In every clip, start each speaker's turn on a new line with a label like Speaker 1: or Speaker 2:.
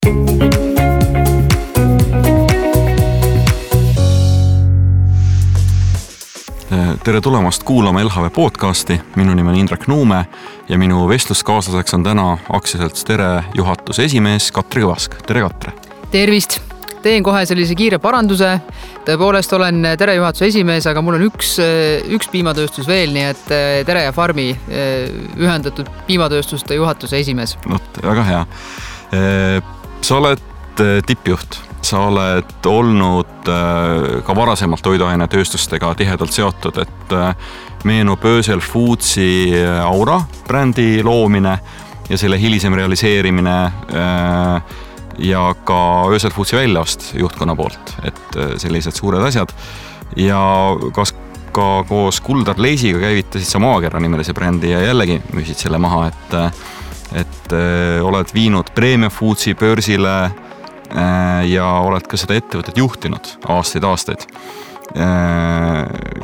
Speaker 1: Tere tulemast kuulama LHV podcasti. Minu nimi on Indrek Nuume ja minu vestluskaaslaseks on täna aktsiaselts Tere juhatuse esimees Katri Kõvask. Tere, Katre!
Speaker 2: Tervist! Teen kohe sellise kiire paranduse. Tõepoolest olen Tere juhatuse esimees, aga mul on üks piimatööstus veel, nii et Tere ja Farmi ühendatud piimatööstuste juhatuse esimees.
Speaker 1: Väga hea. Sa oled tippjuht. Sa oled olnud ka varasemalt toiduainetööstustega tihedalt seotud, et meenub Ösel Foodsi Aura brändi loomine ja selle hilisem realiseerimine ja ka Ösel Foodsi väljaost juhtkonna poolt, et sellised suured asjad. Ja kas ka koos Kuldar Leisiga käivitasid sa Maakera nimelise brändi ja jällegi müüsid selle maha, et oled viinud Premium Foodsi börsile ja oled ka seda ettevõtet juhtinud aastaid.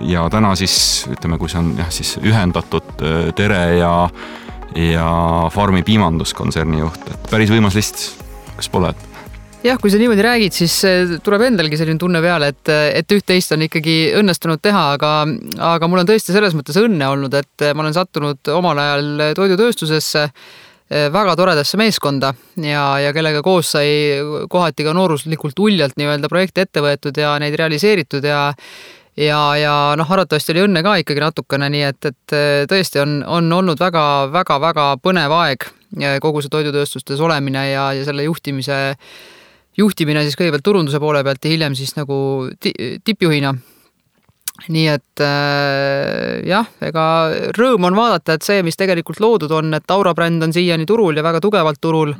Speaker 1: Ja täna siis, ütleme, kui see on siis ühendatud Tere ja Farmi piimanduskontserni juht, et päris võimas list, kas pole?
Speaker 2: Jah, kui sa niimoodi räägid, siis tuleb endalgi selline tunne peale, et üht-teist on ikkagi õnnestunud teha, aga mul on tõesti selles mõttes õnne olnud, et ma olen sattunud omal ajal toidutööstusesse väga toredasse meeskonda ja kellega koos sai kohati ka nooruslikult uljalt nii-öelda projekti ette võetud ja neid realiseeritud ja arvatavasti oli õnne ka ikkagi natukene, nii et tõesti on olnud väga põnev aeg kogu see toidutööstustes olemine ja selle juhtimine siis kõigepealt turunduse poole pealt ja hiljem siis nagu tippjuhina. Nii et ega rõõm on vaadata, et see, mis tegelikult loodud on, et Aura bränd on siiani turul ja väga tugevalt turul.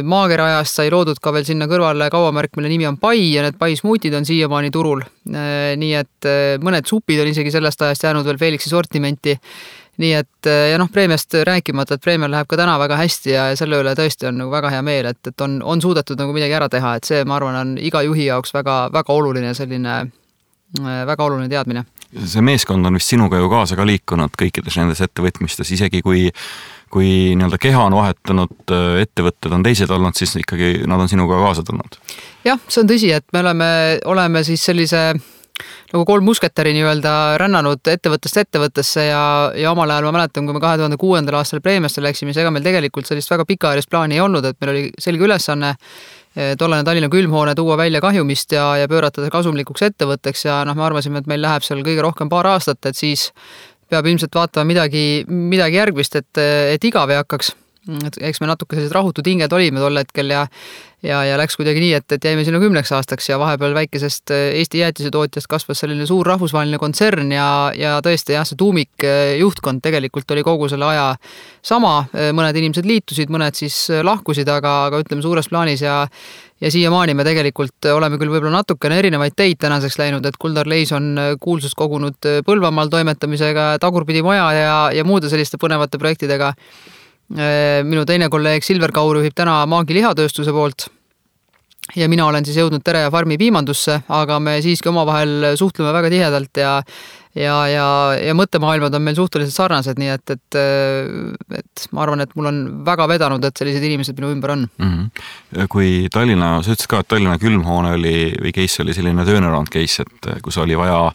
Speaker 2: Maakera ajast sai loodud ka veel sinna kõrvale kaubamärk, mille nimi on Pai ja need Pai smuutid on siiamaani turul. Nii et mõned supid on isegi sellest ajast jäänud veel Felixi sortimenti. Nii et Preemiast rääkimata, et Preemial läheb ka täna väga hästi ja selle üle tõesti on nagu väga hea meel, et on suudetud nagu midagi ära teha, et see, ma arvan, on iga juhi jaoks väga oluline selline väga oluline teadmine.
Speaker 1: See meeskond on vist sinuga ju kaasa ka liikunud kõikides nendes ettevõtmistes, isegi kui nii-öelda keha on vahetanud, ettevõtted on teised olnud, siis ikkagi nad on sinuga kaasa tulnud.
Speaker 2: Jah, see on tõsi, et me oleme siis sellise nagu 3 musketäri nii-öelda rännanud ettevõttest ettevõttesse ja omal ajal ma mäletan, kui me 2006. aastal Preemiasse läksime, siis ega meil tegelikult sellist väga pikaajalist plaani ei olnud, et meil oli selge ülesanne tollane Tallinna külmhoone tuua välja kahjumist ja pöörata kasumlikuks ettevõtteks ja me arvasime, et meil läheb seal kõige rohkem paar aastat, et siis peab ilmselt vaatama midagi järgmist, et igav ei hakkaks. Eks me natuke sellised rahutud hinged olime tol hetkel ja läks kuidagi nii, et jäime sinna 10 aastaks ja vahepeal väikesest Eesti jäätisetootjast kasvas selline suur rahvusvaheline kontsern ja tõesti see tuumik juhtkond tegelikult oli kogu selle aja sama. Mõned inimesed liitusid, mõned siis lahkusid, aga ütleme suures plaanis ja siiamaani me tegelikult oleme küll võib-olla natukene erinevaid teid tänaseks läinud, et Kuldar Leis on kuulsust kogunud Põlvamaal toimetamisega, Tagurpidi maja ja muude selliste põnevate projektidega. Minu teine kolleeg Silver Kaur juhib täna Maagi lihatööstuse poolt ja mina olen siis jõudnud Tere ja Farmi piimandusse, aga me siiski omavahel suhtleme väga tihedalt ja mõttemaailmad on meil suhteliselt sarnased, nii et ma arvan, et mul on väga vedanud, et sellised inimesed minu ümber on.
Speaker 1: Kui sa ütlesid ka, et Tallinna külmhoone või case oli selline turnaround case, et kus oli vaja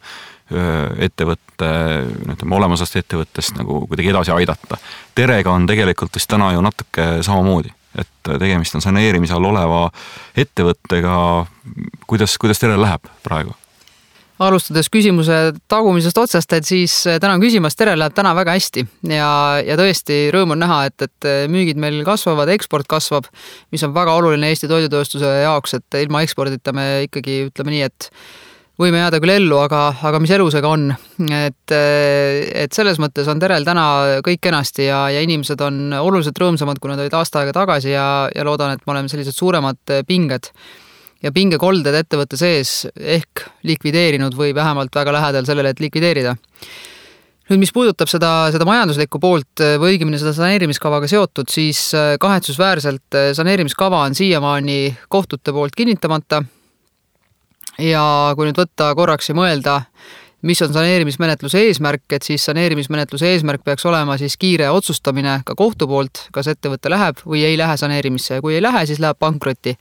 Speaker 1: ettevõtte, olemusast ettevõttest nagu kuidagi edasi aidata. Terega on tegelikult vist täna ju natuke samamoodi, et tegemist on saneerimise all oleva ettevõttega. Kuidas Terel läheb praegu?
Speaker 2: Alustades küsimuse tagumisest otsast, et siis täna küsimas, Terel läheb täna väga hästi ja tõesti rõõm on näha, et müügid meil kasvavad, eksport kasvab, mis on väga oluline Eesti toidutööstuse jaoks, et ilma ekspordita me ikkagi ütleme nii, et võime jääda küll ellu, aga mis elusega on. Et selles mõttes on Terel täna kõik kenasti ja inimesed on oluliselt rõõmsamad, kui nad olid aasta aega tagasi ja loodan, et me oleme sellised suuremad pinged ja pingekolded ettevõtte sees ehk likvideerinud või vähemalt väga lähedal sellele, et likvideerida. Nüüd, mis puudutab seda majanduslikku poolt või õigemini seda saneerimiskavaga seotud, siis kahetsusväärselt saneerimiskava on siiamaani kohtute poolt kinnitamata. Ja kui nüüd võtta korraks ja mõelda mis on saneerimismenetluse eesmärk, et siis saneerimismenetluse eesmärk peaks olema siis kiire otsustamine ka kohtu poolt, kas ettevõte läheb või ei lähe saneerimisse ja kui ei lähe, siis läheb pankrotti.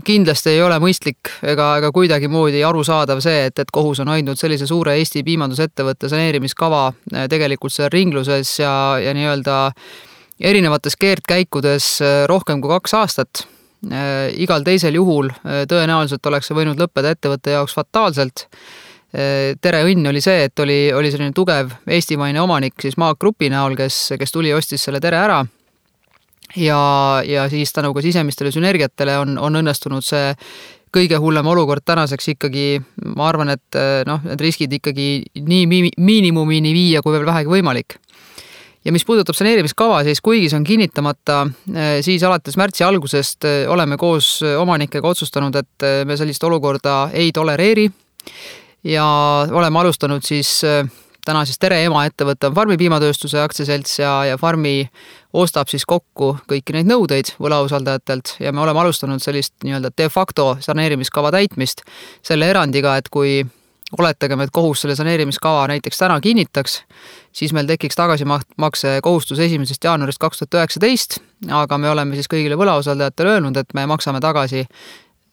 Speaker 2: Kindlasti ei ole mõistlik ega kuidagimoodi arusaadav see, et kohus on hoidnud sellise suure Eesti piimandusettevõtte saneerimiskava tegelikult seal ringluses ja nii-öelda erinevates keerdkäikudes rohkem kui 2 aastat. Igal teisel juhul tõenäoliselt oleks see võinud lõppeda ettevõtte jaoks fataalselt. Tere õnn oli see, et oli selline tugev eestimaine omanik siis Maag Grupi näol, kes tuli ostis selle Tere ära. Ja siis tänu ka sisemistele sünergiatele on õnnestunud see kõige hullem olukord tänaseks ikkagi, ma arvan, et need riskid ikkagi nii miinimumini viia, kui veel vähegi võimalik. Ja mis puudutab saneerimiskava, siis kuigi see on kinnitamata, siis alates märtsi algusest oleme koos omanikega otsustanud, et me sellist olukorda ei tolereeri ja oleme alustanud siis täna siis Tere emaettevõte on Farmi piimatööstuse aktsiaselts ja Farmi ostab siis kokku kõiki neid nõudeid võlausaldajatelt ja me oleme alustanud sellist nii-öelda de facto saneerimiskava täitmist selle erandiga, et kui oletagem, et kohus selle saneerimiskava näiteks täna kinnitaks, siis meil tekiks tagasimakse kohustus 1. jaanuarist 2019, aga me oleme siis kõigile võlausaldajatele öelnud, et me maksame tagasi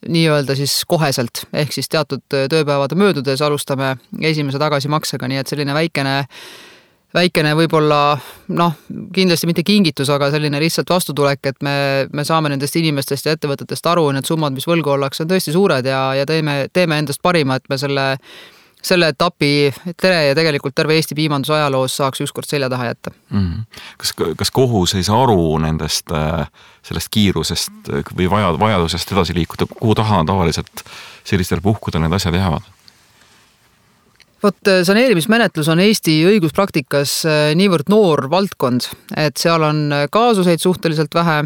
Speaker 2: nii-öelda siis koheselt, ehk siis teatud tööpäevade möödudes alustame esimese tagasimaksega, nii et selline väikene võib-olla, kindlasti mitte kingitus, aga selline lihtsalt vastutulek, et me saame nendest inimestest ja ettevõtetest aru, need summad, mis võlgu ollakse, on tõesti suured ja teeme endast parima, et me selle etapi Tere ja tegelikult terve Eesti piimanduse ajaloos saaks ükskord selja taha jätta.
Speaker 1: Kas kohus ei saa aru sellest kiirusest või vajadusest edasi liikuda, kuhu taha tavaliselt sellistel puhkudel need asjad jäävad?
Speaker 2: Saneerimismenetlus on Eesti õiguspraktikas niivõrd noor valdkond, et seal on kaasuseid suhteliselt vähe,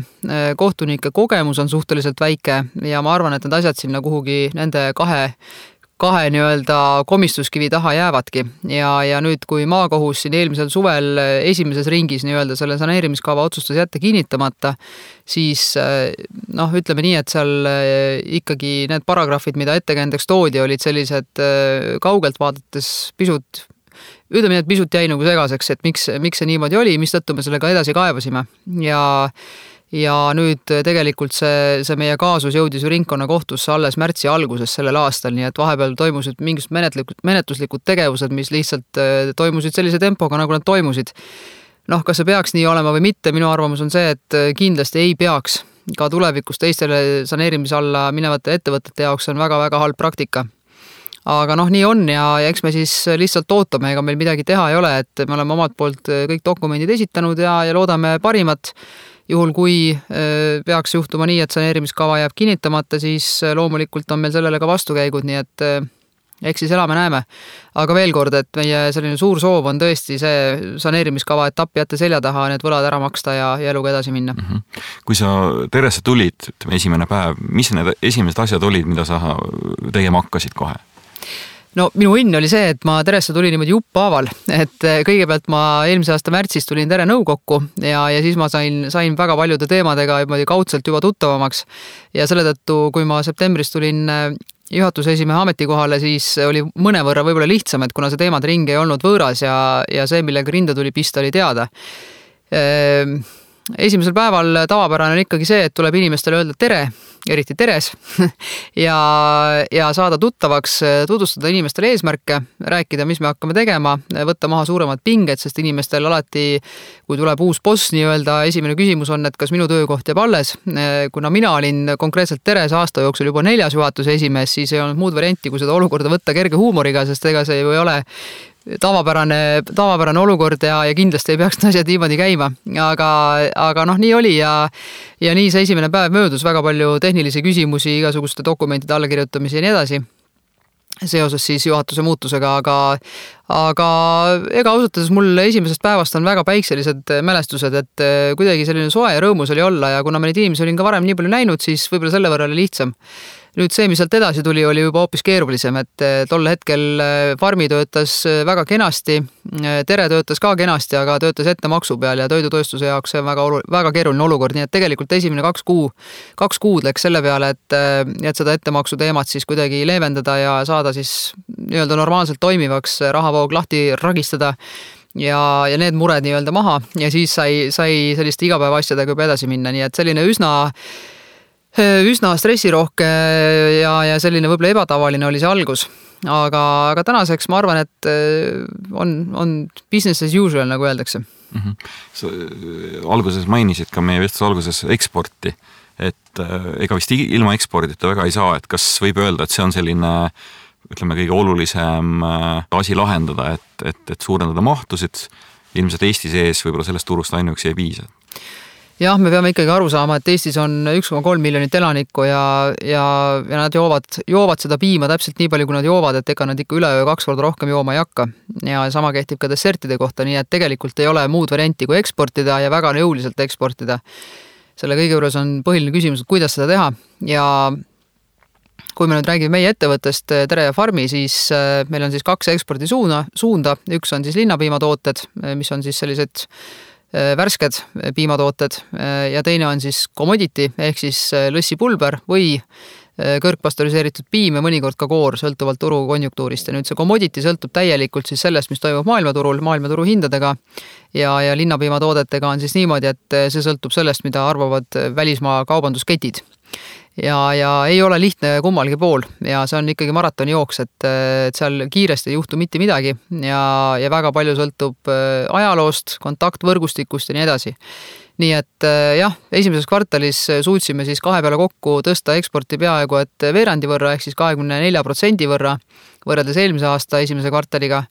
Speaker 2: kohtunike kogemus on suhteliselt väike ja ma arvan, et need asjad sinna kuhugi nende kahe nii-öelda komistuskivi taha jäävadki. Ja nüüd, kui maakohus siin eelmisel suvel esimeses ringis nii-öelda selle saneerimiskava otsustas jätta kinnitamata, siis ütleme nii, et seal ikkagi need paragrahvid, mida ettekäändeks toodi, olid sellised kaugelt vaadates pisut jäi nagu segaseks, et miks see niimoodi oli, mistõttu me sellega edasi kaevasime. Ja nüüd tegelikult see meie kaasus jõudis ju ringkonnakohtusse alles märtsi alguses sellel aastal, nii et vahepeal toimusid mingisugused menetluslikud tegevused, mis lihtsalt toimusid sellise tempoga, nagu nad toimusid. Kas see peaks nii olema või mitte, minu arvamus on see, et kindlasti ei peaks ka tulevikus teistele saneerimise alla minevate ettevõtete jaoks on väga-väga halb praktika. Aga nii on ja eks me siis lihtsalt ootame, ega meil midagi teha ei ole, et me oleme omalt poolt kõik dokumendid esitanud ja loodame parimat. Juhul, kui peaks juhtuma nii, et saneerimiskava jääb kinnitamata, siis loomulikult on meil sellele ka vastukäigud, nii et eks siis elame-näeme. Aga veel kord, et meie selline suur soov on tõesti see saneerimiskava etappi jätta selja taha, need võlad ära maksta ja eluga edasi minna.
Speaker 1: Kui sa Teresse tulid, esimene päev, mis need esimesed asjad olid, mida sa tegema hakkasid kohe?
Speaker 2: Minu õnn oli see, et ma Teresse tulin niimoodi juppaaval, et kõigepealt ma eelmise aasta märtsis tulin Tere nõukokku ja siis ma sain väga paljude teemadega kaudselt juba tuttavamaks ja selle tõttu, kui ma septembris tulin juhatuse esimehe ametikohale, siis oli mõnevõrra võib-olla lihtsam, et kuna see teemade ring ei olnud võõras ja see, millega rinda tuli pista, oli teada. Esimesel päeval tavapärane on ikkagi see, et tuleb inimestele öelda tere, eriti teres, ja saada tuttavaks, tutvustada inimestele eesmärke, rääkida, mis me hakkame tegema, võtta maha suuremad pinged, sest inimestel alati, kui tuleb uus boss nii-öelda, esimene küsimus on, et kas minu töökoht jääb alles. Kuna mina olin konkreetselt Teres aasta jooksul juba 4. juhatuse esimees, siis ei olnud muud varianti, kui seda olukorda võtta kerge huumoriga, sest ega see ju ei ole tavapärane olukord ja kindlasti ei peaks asjad niimoodi käima, aga nii oli ja nii see esimene päev möödus, väga palju tehnilisi küsimusi, igasuguste dokumentide allakirjutamisi ja nii edasi seoses siis juhatuse muutusega, aga ega ausalt öeldes mul esimesest päevast on väga päikselised mälestused, et kuidagi selline soe ja rõõmus oli olla ja kuna ma neid inimesi olin ka varem nii palju näinud, siis võib-olla selle võrra oli lihtsam. Nüüd see, mis sealt edasi tuli, oli juba hoopis keerulisem, et tol hetkel farmi töötas väga kenasti, Tere töötas ka kenasti, aga töötas ettemaksu peal ja toidutööstuse jaoks see on väga keeruline olukord, nii et tegelikult esimene 2 kuud läks selle peale, et seda ettemaksu teemat siis kuidagi leevendada ja saada siis nii-öelda normaalselt toimivaks, rahavoog lahti ragistada ja need mured nii-öelda maha ja siis sai selliste igapäevaasjadega juba edasi minna, nii et selline üsna stressirohke ja selline võib-olla ebatavaline oli see algus. Aga tänaseks ma arvan, et on business as usual, nagu öeldakse.
Speaker 1: Sa alguses mainisid ka meie vestluse alguses eksporti, et ega vist ilma ekspordita väga ei saa, et kas võib öelda, et see on selline ütleme kõige olulisem asi lahendada, et suurendada mahtusid, ilmselt Eesti sees võib-olla sellest turust ainuüksi ei piisa.
Speaker 2: Jah, me peame ikkagi aru saama, et Eestis on 1,3 miljonit elanikku ja nad joovad seda piima täpselt nii palju, kui nad joovad, et ega nad ikka üleöö 2 korda rohkem jooma ei hakka. Ja sama kehtib ka dessertide kohta, nii et tegelikult ei ole muud varianti kui eksportida ja väga jõuliselt eksportida. Selle kõige juures on põhiline küsimus, et kuidas seda teha ja kui me nüüd räägime meie ettevõttest Tere ja Farmi, siis meil on siis 2 ekspordisuunda. Üks on siis linnapiimatooted, mis on siis sellised värsked piimatooted ja teine on siis commodity ehk siis lõssipulber või kõrgpastöriseeritud piim ja mõnikord ka koor, sõltuvalt turu konjunktuurist. Ja nüüd see commodity sõltub täielikult siis sellest, mis toimub maailmaturu hindadega ja linnapiimatoodetega on siis niimoodi, et see sõltub sellest, mida arvavad välismaa kaubandusketid. Ja ei ole lihtne kummalgi pool ja see on ikkagi maratoni jooks, et seal kiiresti ei juhtu mitte midagi ja väga palju sõltub ajaloost, kontaktvõrgustikust ja nii edasi. Nii et jah, esimeses kvartalis suutsime siis 2 peale kokku tõsta eksporti peaaegu et veerandi võrra ehk siis 24% võrra võrreldes eelmise aasta esimese kvartaliga.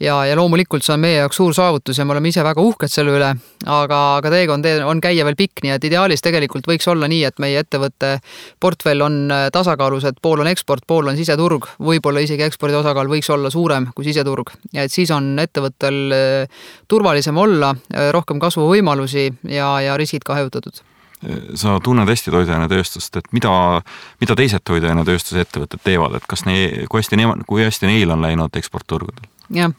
Speaker 2: Ja loomulikult see on meie jaoks suur saavutus ja me oleme ise väga uhked selle üle, aga teekond on käia veel pikk, nii et ideaalis tegelikult võiks olla nii, et meie ettevõtte portfell on tasakaalus, et pool on eksport, pool on siseturg, võib-olla isegi ekspordi osakaal võiks olla suurem kui siseturg ja et siis on ettevõttel turvalisem olla, rohkem kasvuvõimalusi ja riskid ka hajutatud.
Speaker 1: Sa tunned hästi toiduainetööstust, et mida teised toiduainetööstuse ettevõtted teevad, et kui hästi neil on läinud eksportturgudel?
Speaker 2: Jah,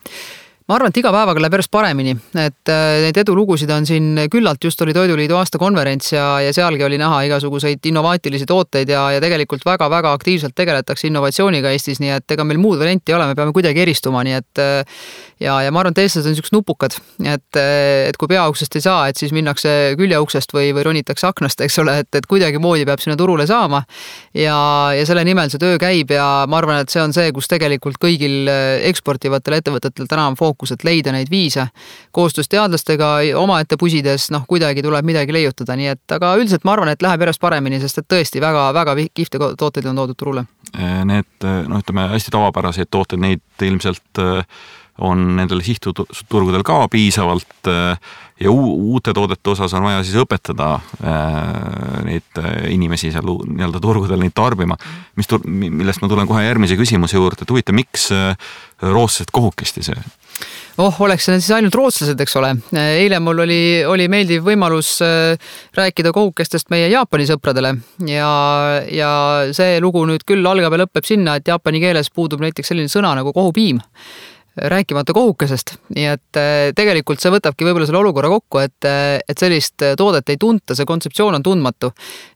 Speaker 2: ma arvan, et iga päevaga läheb järjest paremini, et neid edulugusid on siin küllalt, just oli Toiduliidu aastakonverents ja sealgi oli näha igasuguseid innovaatilisi tooteid ja tegelikult väga-väga aktiivselt tegeletakse innovatsiooniga Eestis, nii et ega meil muud varianti ei ole, me peame kuidagi eristuma, nii et ja ma arvan, et eestlased on niisugused nupukad, et kui peauksest ei saa, et siis minnakse küljeuksest või ronitakse aknast, eks ole, et kuidagi moodi peab sinna turule saama ja selle nimel see töö käib ja ma arvan, et see on see, kus tegelikult kõigil eksportivatel ettevõtetel täna on fookus, et leida neid viise koostöös teadlastega omaette pusides, kuidagi tuleb midagi leiutada, nii et aga üldiselt ma arvan, et läheb järjest paremini, sest et tõesti väga kihvte tooteid on toodud turule.
Speaker 1: Need, ütleme, hästi tavapäraseid tooteid, neid ilmselt on nendel sihtturgudel ka piisavalt ja uute toodete osas on vaja siis õpetada neid inimesi seal nii-öelda turgudel neid tarbima, millest ma tulen kohe järgmise küsimuse juurde, et huvita, miks rootslased kohukesti see?
Speaker 2: Oleks need siis ainult rootslased, eks ole. Eile mul oli meeldiv võimalus rääkida kohukestest meie Jaapani sõpradele ja see lugu nüüd küll algab ja lõpeb sinna, et jaapani keeles puudub näiteks selline sõna nagu kohupiim, rääkimata kohukesest, nii et tegelikult see võtabki võib-olla selle olukorra kokku, et sellist toodet ei tunta, see kontseptsioon on tundmatu.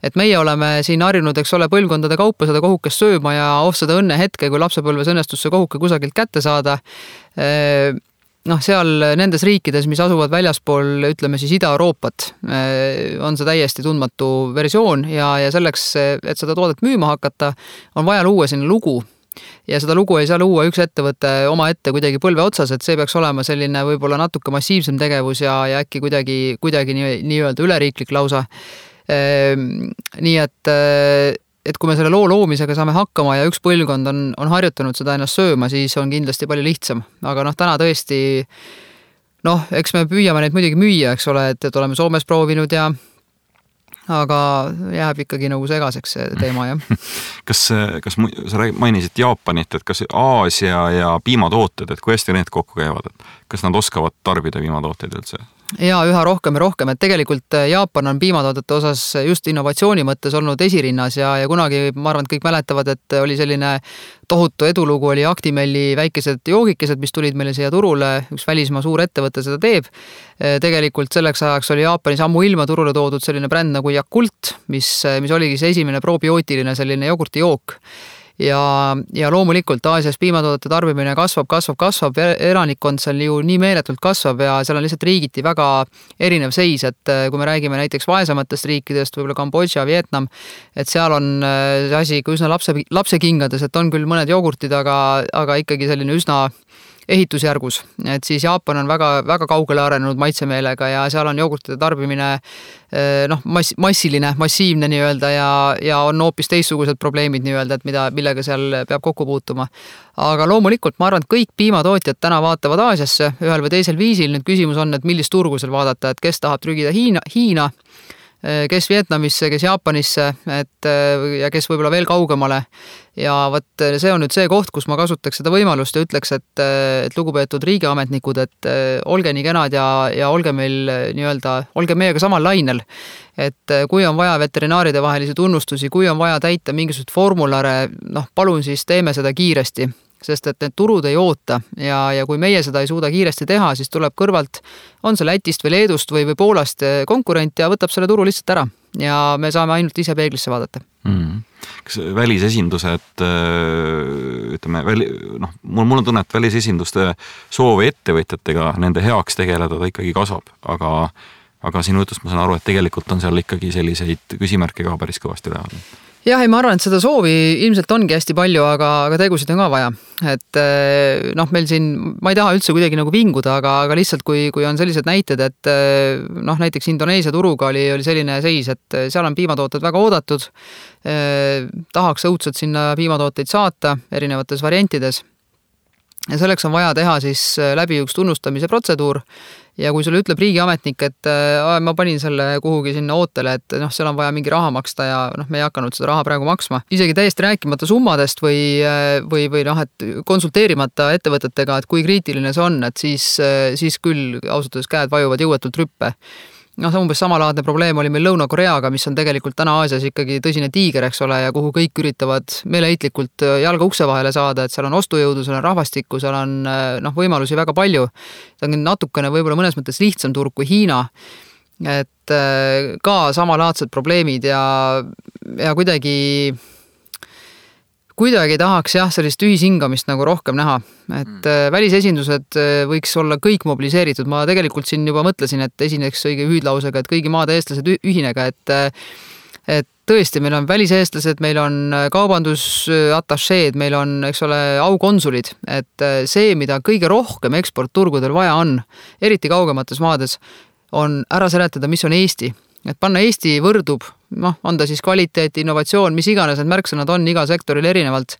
Speaker 2: Et meie oleme siin harjunud, eks ole, põlvkondade kaupa seda kohukest sööma ja seda õnne hetke, kui lapsepõlves õnnestus see kohuke kusagilt kätte saada. Seal nendes riikides, mis asuvad väljaspool, ütleme siis Ida-Euroopat, on see täiesti tundmatu versioon ja selleks, et seda toodet müüma hakata, on vaja luua sinna lugu. Ja seda lugu ei saa luua üks ettevõte oma ette kuidagi põlve otsas, et see peaks olema selline võib-olla natuke massiivsem tegevus ja äkki kuidagi nii-öelda üleriiklik lausa. Nii et kui me selle loo loomisega saame hakkama ja üks põlvkond on harjutanud seda ennast sööma, siis on kindlasti palju lihtsam. Aga täna tõesti, eks me püüame neid muidugi müüa, eks ole, et oleme Soomes proovinud ja aga jääb ikkagi nagu segaseks see teema, jah.
Speaker 1: Kas sa mainisid Jaapanit, et kas Aasia ja piimatooted, et kui hästi need kokku käivad, et kas nad oskavad tarbida piimatooteid üldse?
Speaker 2: Ja üha rohkem ja rohkem, et tegelikult Jaapan on piimatoodete osas just innovatsiooni mõttes olnud esirinnas ja kunagi, ma arvan, et kõik mäletavad, et oli selline tohutu edulugu, oli Actimelli väikesed joogikesed, mis tulid meile siia turule, üks välismaa suur ettevõte seda teeb. Tegelikult selleks ajaks oli Jaapanis ammu ilma turule toodud selline bränd nagu Yakult, mis oligi see esimene probiootiline selline jogurtijook. Ja loomulikult Aasias piimatoodete tarbimine kasvab, elanikkond seal ju nii meeletult kasvab ja seal on lihtsalt riigiti väga erinev seis, et kui me räägime näiteks vaesematest riikidest, võib-olla Kambodža, Vietnam, et seal on see asi üsna lapsekingades, et on küll mõned jogurtid, aga ikkagi selline üsna ehitusjärgus, et siis Jaapan on väga, väga kaugele arenenud maitsemeelega ja seal on jogurtide tarbimine massiivne nii-öelda ja on hoopis teistsugused probleemid nii-öelda, et millega seal peab kokku puutuma. Aga loomulikult ma arvan, et kõik piimatootjad täna vaatavad Aasiasse ühel või teisel viisil. Nüüd küsimus on, et millist turgu seal vaadata, et kes tahab trügida Hiina, kes Vietnamisse, kes Jaapanisse, ja kes võib-olla veel kaugemale. Ja võt, see on nüüd see koht, kus ma kasutaks seda võimalust ja ütleks, et lugupeetud riigiametnikud, et olge nii kenad ja olge meil nii-öelda, olge meiega samal lainel. Et kui on vaja veterinaaride vahelisi tunnustusi, kui on vaja täita mingisugused formulare, palun siis teeme seda kiiresti. Sest et need turud ei oota ja kui meie seda ei suuda kiiresti teha, siis tuleb kõrvalt, on see Lätist või Leedust või Poolast konkurent ja võtab selle turu lihtsalt ära ja me saame ainult ise peeglisse vaadata.
Speaker 1: Kas välisesindused, ütleme, mul on tunne, et välisesinduste soov ettevõtjatega nende heaks tegeleda ta ikkagi kasvab, aga sinu jutust ma saan aru, et tegelikult on seal ikkagi selliseid küsimärke ka päris kõvasti üleval.
Speaker 2: Jah, ma arvan, et seda soovi ilmselt ongi hästi palju, aga tegusid on ka vaja. Et meil siin, ma ei taha üldse kuidagi nagu vinguda, aga lihtsalt kui on sellised näited, et näiteks Indoneesia turuga oli selline seis, et seal on piimatooted väga oodatud, tahaks õudselt sinna piimatooteid saata erinevates variantides. Ja selleks on vaja teha siis läbi üks tunnustamise protseduur ja kui sulle ütleb riigiametnik, et ma panin selle kuhugi sinna ootele, et seal on vaja mingi raha maksta ja me ei hakanud seda raha praegu maksma. Isegi täiesti rääkimata summadest või et konsulteerimata ettevõtetega, et kui kriitiline see on, et siis küll ausalt käed vajuvad jõuetult rüppe. Umbes samalaadne probleem oli meil Lõuna-Koreaga, mis on tegelikult täna Aasias ikkagi tõsine tiiger, eks ole, ja kuhu kõik üritavad meeleheitlikult jalga ukse vahele saada, et seal on ostujõudu, seal on rahvastikku, seal on võimalusi väga palju. See on natukene võib-olla mõnes mõttes lihtsam turg kui Hiina, et ka samalaadsed probleemid ja kuidagi tahaks sellist ühishingamist nagu rohkem näha, et välisesindused võiks olla kõik mobiliseeritud. Ma tegelikult siin juba mõtlesin, et esineks õige hüüdlausega, et kõigi maade eestlased ühinega, et tõesti, meil on väliseestlased, meil on kaubandusatašeed, meil on, eks ole, aukonsulid, et see, mida kõige rohkem eksportturgudel vaja on, eriti kaugemates maades, on ära seletada, mis on Eesti. Et panna Eesti võrdub, on ta siis kvaliteet, innovatsioon, mis iganes need märksõnad on iga sektoril erinevalt.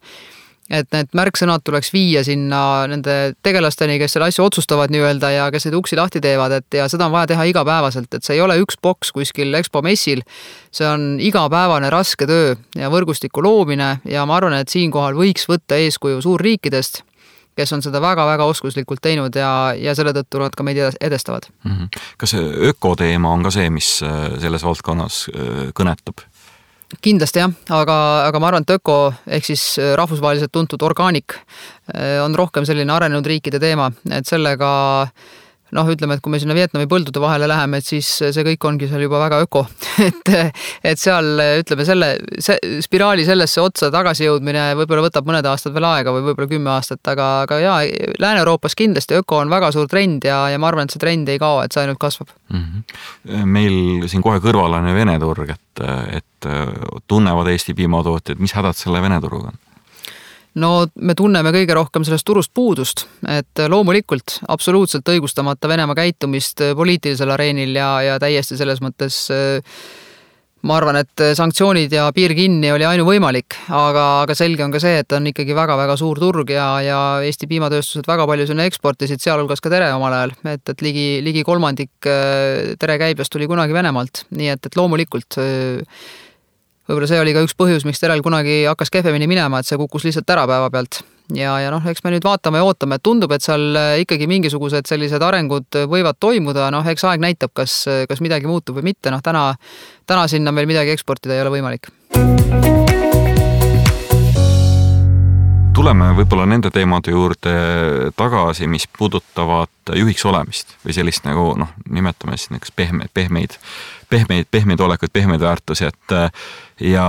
Speaker 2: Et need märksõnad tuleks viia sinna nende tegelasteni, kes selle asju otsustavad nii-öelda ja kes neid uksi lahti teevad, ja seda on vaja teha igapäevaselt, et see ei ole üks boks kuskil Expo messil, see on igapäevane raske töö ja võrgustiku loomine ja ma arvan, et siinkohal võiks võtta eeskuju suurriikidest, kes on seda väga-väga oskuslikult teinud ja selle tõttu nad ka meid edestavad.
Speaker 1: Kas ökoteema on ka see, mis selles valdkonnas kõnetab?
Speaker 2: Kindlasti jah, aga ma arvan, et öko ehk siis rahvusvaheliselt tuntud orgaanik on rohkem selline arenenud riikide teema, et sellega ütleme, et kui me sinna Vietnami põldude vahele läheme, et siis see kõik ongi seal juba väga öko. Et seal, ütleme, see spiraali sellesse otsa tagasi jõudmine võib-olla võtab mõned aastad veel aega või võib-olla 10 aastat, aga Lääne-Euroopas kindlasti öko on väga suur trend ja ma arvan, et see trend ei kao, et see ainult kasvab.
Speaker 1: Meil siin kohe kõrval on Vene turg, et tunnevad Eesti piimatootjad, mis hädad selle Vene turuga on?
Speaker 2: Me tunneme kõige rohkem sellest turust puudust, et loomulikult absoluutselt õigustamata Venemaa käitumist poliitilisel areenil ja täiesti selles mõttes ma arvan, et sanktsioonid ja piir kinni oli ainuvõimalik, aga selge on ka see, et on ikkagi väga-väga suur turg ja Eesti piimatööstused väga palju sinna eksportisid, sealhulgas ka tere omal ajal, et ligi kolmandik tere käibest tuli kunagi Venemaalt, nii et loomulikult võib-olla see oli ka üks põhjus, miks terel kunagi hakkas kehvemini minema, et see kukkus lihtsalt ära päeva pealt. Ja eks me nüüd vaatame ja ootame, et tundub, et seal ikkagi mingisugused sellised arengud võivad toimuda, eks aeg näitab, kas midagi muutub või mitte, täna sinna meil midagi eksportida ei ole võimalik.
Speaker 1: Tuleme võib-olla nende teemade juurde tagasi, mis puudutavad juhiks olemist või sellist nagu, nimetame siis näiteks pehmeid olekuid, pehmeid väärtusi, ja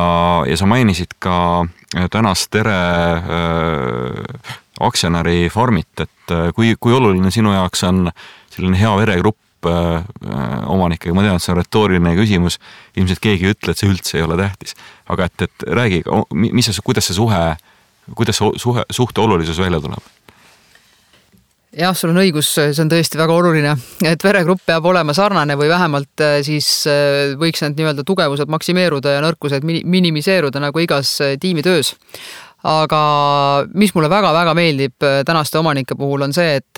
Speaker 1: sa mainisid ka tänast tere aktsionäri Farmit, et kui oluline sinu jaoks on selline hea veregrupp omanikega, ma tean, et see on retooriline küsimus, ilmselt keegi ei ütle, et see üldse ei ole tähtis, aga et räägi, kuidas suhte olulisus välja tuleb?
Speaker 2: Jah, sul on õigus, see on tõesti väga oluline, et veregrupp peab olema sarnane või vähemalt siis võiks need nii-öelda tugevused maksimeeruda ja nõrkused minimiseeruda nagu igas tiimitöös. Aga mis mulle väga-väga meeldib tänaste omanike puhul on see, et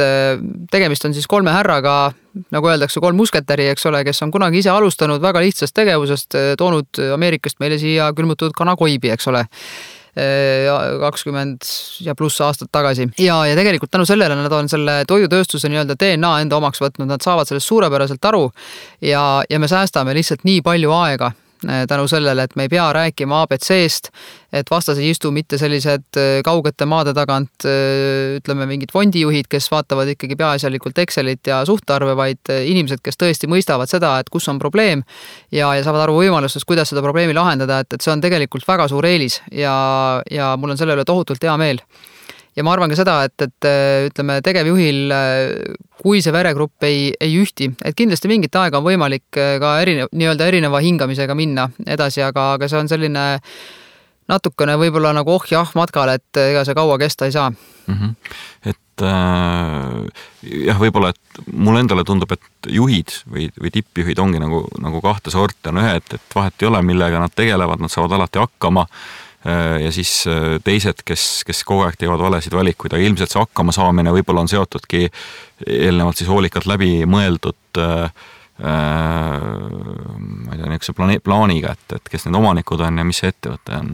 Speaker 2: tegemist on siis 3 härraga, nagu öeldakse, 3 musketäri, eks ole, kes on kunagi ise alustanud väga lihtsast tegevusest, toonud Ameerikast meile siia külmutatud kanakoibi, eks ole. 20 ja pluss aastat tagasi. Ja tegelikult tänu sellele nad on selle toidutööstuse nii-öelda DNA enda omaks võtnud, nad saavad sellest suurepäraselt aru ja me säästame lihtsalt nii palju aega tänu sellele, et me ei pea rääkima ABC-st, et vastas ei istu mitte sellised kaugete maade tagant, ütleme mingid fondijuhid, kes vaatavad ikkagi peaasjalikult Excelit ja suhtarve, vaid inimesed, kes tõesti mõistavad seda, et kus on probleem ja saavad aru võimalustest, kuidas seda probleemi lahendada, et see on tegelikult väga suur eelis ja mul on selle üle tohutult hea meel. Ja ma arvan ka seda, et ütleme tegevjuhil, kui see veregrupp ei ühti, et kindlasti mingit aega on võimalik ka erineva hingamisega minna edasi, aga see on selline natukene võib-olla nagu matkal, et ega see kaua kesta ei saa.
Speaker 1: Et jah, võib-olla, et mulle endale tundub, et juhid või tippjuhid ongi nagu 2 sorti, on ühed, et vahet ei ole, millega nad tegelevad, nad saavad alati hakkama ja siis teised, kes kogu aeg teevad valesid valikuid, aga ilmselt see hakkama saamine võib-olla on seotudki eelnevalt siis hoolikalt läbi mõeldud ma ei tea, niisuguse plaaniga, et kes need omanikud on ja mis see ettevõte on.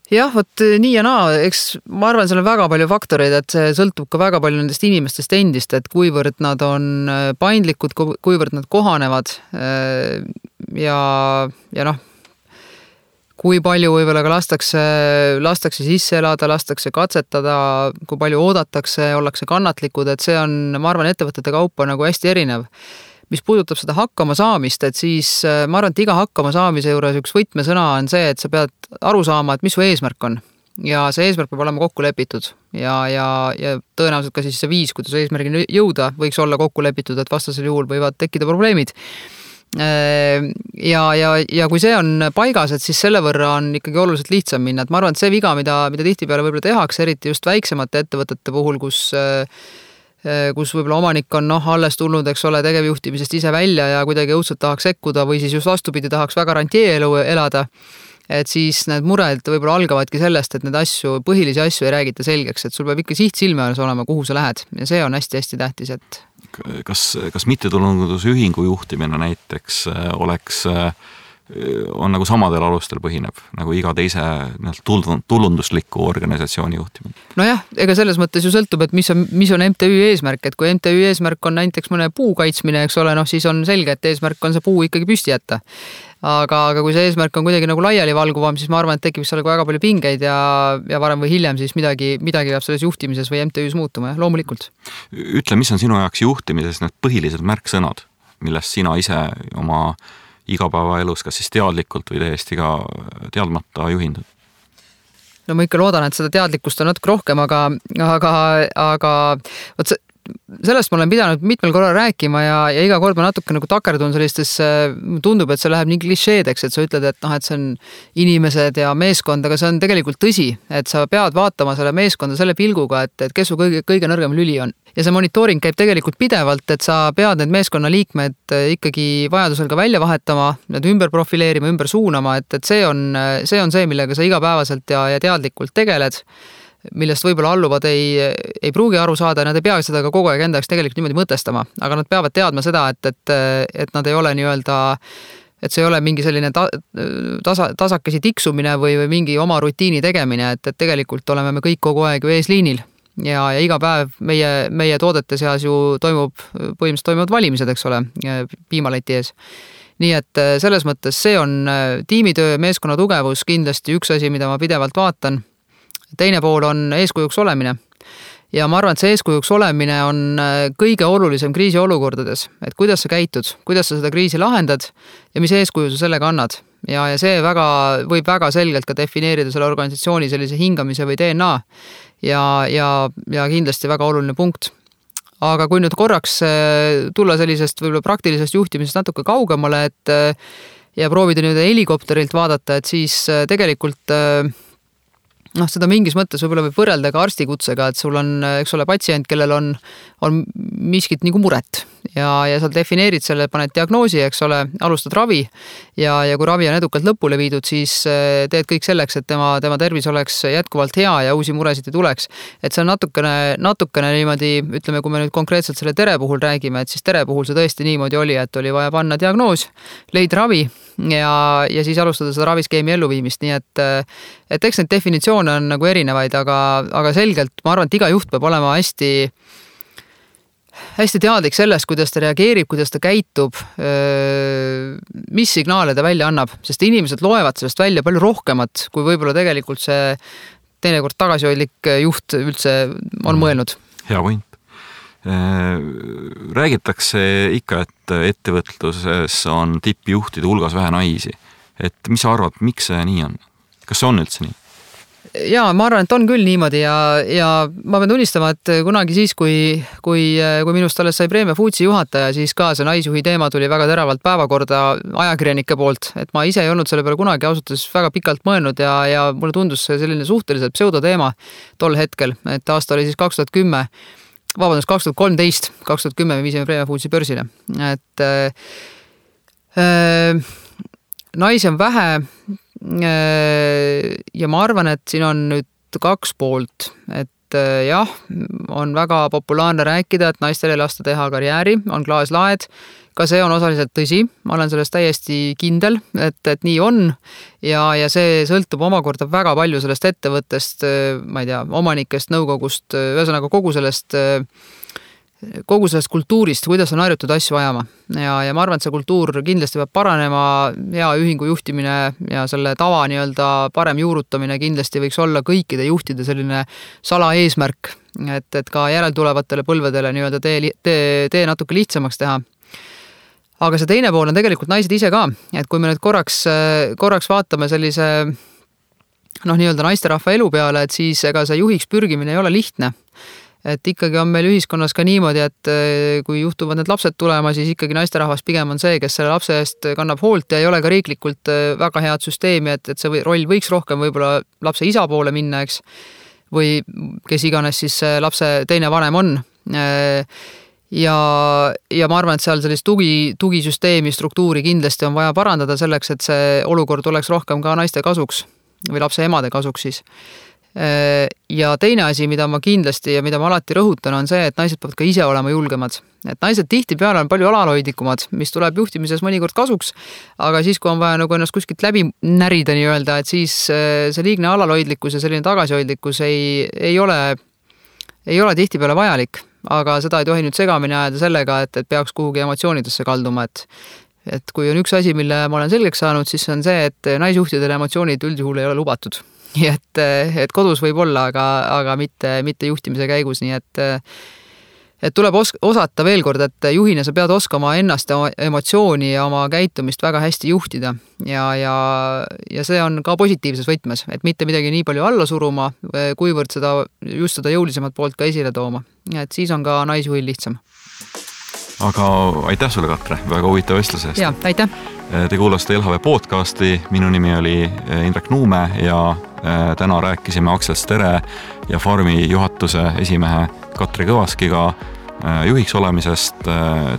Speaker 2: Jah, vot nii ja naa, eks ma arvan, seal on väga palju faktoreid, et see sõltub ka väga palju nendest inimestest endist, et kuivõrd nad on paindlikud, kuivõrd nad kohanevad ja kui palju võib-olla ka lastakse sisse elada, lastakse katsetada, kui palju oodatakse, ollakse kannatlikud, et see on, ma arvan, ettevõtete kaupa nagu hästi erinev. Mis puudutab seda hakkama saamist, et siis ma arvan, et iga hakkama saamise juures üks võtmesõna on see, et sa pead aru saama, et mis su eesmärk on. Ja see eesmärk peab olema kokku lepitud ja tõenäoliselt ka siis see viis, kuidas eesmärgini jõuda, võiks olla kokku lepitud, et vastasel juhul võivad tekkida probleemid. Ja kui see on paigas, et siis selle võrra on ikkagi oluliselt lihtsam minna, et ma arvan, et see viga, mida tihtipeale võib-olla tehakse, eriti just väiksemate ettevõtete puhul, kus võib-olla omanik on alles tulnud, eks ole, tegevjuhtimisest ise välja ja kuidagi õudselt tahaks sekkuda või siis just vastupidi tahaks väga rantieelu elada, et siis need mured võib-olla algavadki sellest, et need põhilisi asju ei räägita selgeks, et sul peab ikka siht silme alles olema, kuhu sa lähed ja see on hästi-hästi tähtis, et
Speaker 1: kas mittetulundusühingu juhtimine näiteks on nagu samadel alustel põhineb, nagu iga teise tulundusliku organisatsiooni juhtimine?
Speaker 2: Nojah, ega selles mõttes ju sõltub, et mis on MTÜ eesmärk, et kui MTÜ eesmärk on näiteks mõne puu kaitsmine, eks ole, siis on selge, et eesmärk on see puu ikkagi püsti jätta. Aga kui see eesmärk on kuidagi nagu laiali valguvam, siis ma arvan, et tekib seal väga palju pingeid ja varem või hiljem siis midagi peab selles juhtimises või MTÜs muutuma, loomulikult.
Speaker 1: Ütle, mis on sinu jaoks juhtimises need põhilised märksõnad, millest sina ise oma igapäevaelus, kas siis teadlikult või täiesti ka teadmata juhindud?
Speaker 2: No ma ikka loodan, et seda teadlikkust on natuke rohkem, aga sellest ma olen pidanud mitmel korral rääkima ja iga kord ma natuke nagu takerdun sellistesse, tundub, et see läheb nii klišeedeks, et sa ütled, et noh, et see on inimesed ja meeskond, aga see on tegelikult tõsi, et sa pead vaatama selle meeskonda selle pilguga, et kes su kõige nõrgem lüli on. Ja see monitooring käib tegelikult pidevalt, et sa pead need meeskonna liikmed ikkagi vajadusel ka välja vahetama, need ümber profileerima, ümber suunama, et see on see, millega sa igapäevaselt ja teadlikult tegeled, millest võib-olla alluvad ei pruugi aru saada, nad ei pea seda ka kogu aeg endaks tegelikult niimoodi mõtestama, aga nad peavad teadma seda, et nad ei ole nii-öelda, et see ei ole mingi selline tasakesi tiksumine või mingi oma rutiini tegemine, et tegelikult oleme me kõik kogu aeg ju eesliinil ja iga päev meie toodete seas ju põhimõtteliselt toimuvad valimised, eks ole, piimaleti ees. Nii et selles mõttes see on tiimitöö, meeskonna tugevus kindlasti üks asi, mida ma pidevalt vaatan. Teine pool on eeskujuks olemine ja ma arvan, et see eeskujuks olemine on kõige olulisem kriisiolukordades, et kuidas sa käitud, kuidas sa seda kriisi lahendad ja mis eeskuju sa sellega annad. Ja see võib väga selgelt ka defineerida selle organisatsiooni sellise hingamise või DNA ja kindlasti väga oluline punkt. Aga kui nüüd korraks tulla sellisest võib-olla praktilisest juhtimisest natuke kaugemale, ja proovida nüüd helikopterilt vaadata, et siis tegelikult seda mingis mõttes võib-olla võib võrrelda ka arstikutsega, et sul on, eks ole, patsient, kellel on miskit nagu muret ja sa defineerid selle, paned diagnoosi, eks ole, alustad ravi ja kui ravi on edukalt lõpule viidud, siis teed kõik selleks, et tema tervis oleks jätkuvalt hea ja uusi muresid ei tuleks. Et see on natukene niimoodi, ütleme, kui me nüüd konkreetselt selle tere puhul räägime, et siis tere puhul see tõesti niimoodi oli, et oli vaja panna diagnoos, leida ravi ja siis alustada seda raviskeemi elluviimist, nii et eks neid definitsioone on nagu erinevaid, aga selgelt ma arvan, et iga juht peab olema hästi teadlik sellest, kuidas ta reageerib, kuidas ta käitub, mis signaale ta välja annab, sest inimesed loevad sellest välja palju rohkemat, kui võib-olla tegelikult see teinekord tagasihoidlik juht üldse on mõelnud.
Speaker 1: Hea point. Räägitakse ikka, et ettevõtluses on tippjuhtide hulgas vähe naisi. Et mis sa arvad, miks see nii on? Kas see on üldse nii?
Speaker 2: Jaa, ma arvan, et on küll niimoodi ja ma pean tunnistama, et kunagi siis, kui minust alles sai Preemia Foodsi juhataja, siis ka see naisjuhi teema tuli väga teravalt päevakorda ajakirjanike poolt, et ma ise ei olnud selle peale kunagi ausalt väga pikalt mõelnud ja mulle tundus see selline suhteliselt pseudoteema tol hetkel, et aasta oli siis 2013 me viisime Preemia Foodsi börsile, et naisi on vähe ja ma arvan, et siin on nüüd kaks poolt, et jah, on väga populaarne rääkida, et naistel ei lasta teha karjääri, on klaaslaed, ka see on osaliselt tõsi, ma olen sellest täiesti kindel, et nii on ja see sõltub omakorda väga palju sellest ettevõttest, ma ei tea, omanikest, nõukogust, ühesõnaga kogu sellest kultuurist, kuidas on harjutud asju ajama ja ma arvan, et see kultuur kindlasti peab paranema, hea ühingu juhtimine ja selle tava nii-öelda parem juurutamine kindlasti võiks olla kõikide juhtide selline salaeesmärk, et ka järeltulevatele põlvedele nii-öelda tee natuke lihtsamaks teha. Aga see teine pool on tegelikult naised ise ka, et kui me nüüd korraks vaatame sellise nii-öelda naisterahva elu peale, et siis ega see juhiks pürgimine ei ole lihtne. Et ikkagi on meil ühiskonnas ka niimoodi, et kui juhtuvad need lapsed tulema, siis ikkagi naisterahvas pigem on see, kes selle lapse eest kannab hoolt ja ei ole ka riiklikult väga head süsteemi, et see roll võiks rohkem võib-olla lapse isa poole minna, eks, või kes iganes siis lapse teine vanem on. Ja ma arvan, et seal sellist tugisüsteemi struktuuri kindlasti on vaja parandada selleks, et see olukord oleks rohkem ka naiste kasuks või lapse emade kasuks siis. Ja teine asi, mida ma kindlasti ja mida ma alati rõhutan, on see, et naised peavad ka ise olema julgemad. Et naised tihtipeale on palju alalhoidlikumad, mis tuleb juhtimises mõnikord kasuks, aga siis, kui on vaja nagu ennast kuskilt läbi närida nii-öelda, et siis see liigne alalhoidlikkus ja selline tagasihoidlikkus ei ole tihtipeale vajalik, aga seda ei tohi nüüd segamini ajada sellega, et peaks kuhugi emotsioonidesse kalduma, et kui on üks asi, mille ma olen selgeks saanud, siis on see, et naisjuhtidele emotsioonid üldjuhul ei ole lubatud. Nii et kodus võib olla, aga mitte juhtimise käigus, nii et tuleb osata veel kord, et juhina sa pead oskama ennast, emotsiooni ja oma käitumist väga hästi juhtida ja see on ka positiivses võtmes, et mitte midagi nii palju alla suruma, kuivõrd just seda jõulisemat poolt ka esile tooma. Et siis on ka naisjuhil lihtsam.
Speaker 1: Aga aitäh sulle, Katre, väga huvitav vestluse eest.
Speaker 2: Ja, aitäh.
Speaker 1: Te kuulasite LHV podcasti, minu nimi oli Indrek Nuume ja täna rääkisime Aksel Stere ja Farmi juhatuse esimehe Katre Kõvaskiga juhiks olemisest,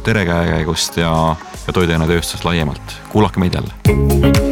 Speaker 1: Tere käekäigust ja toiduainetööstus laiemalt. Kuulake meid jälle.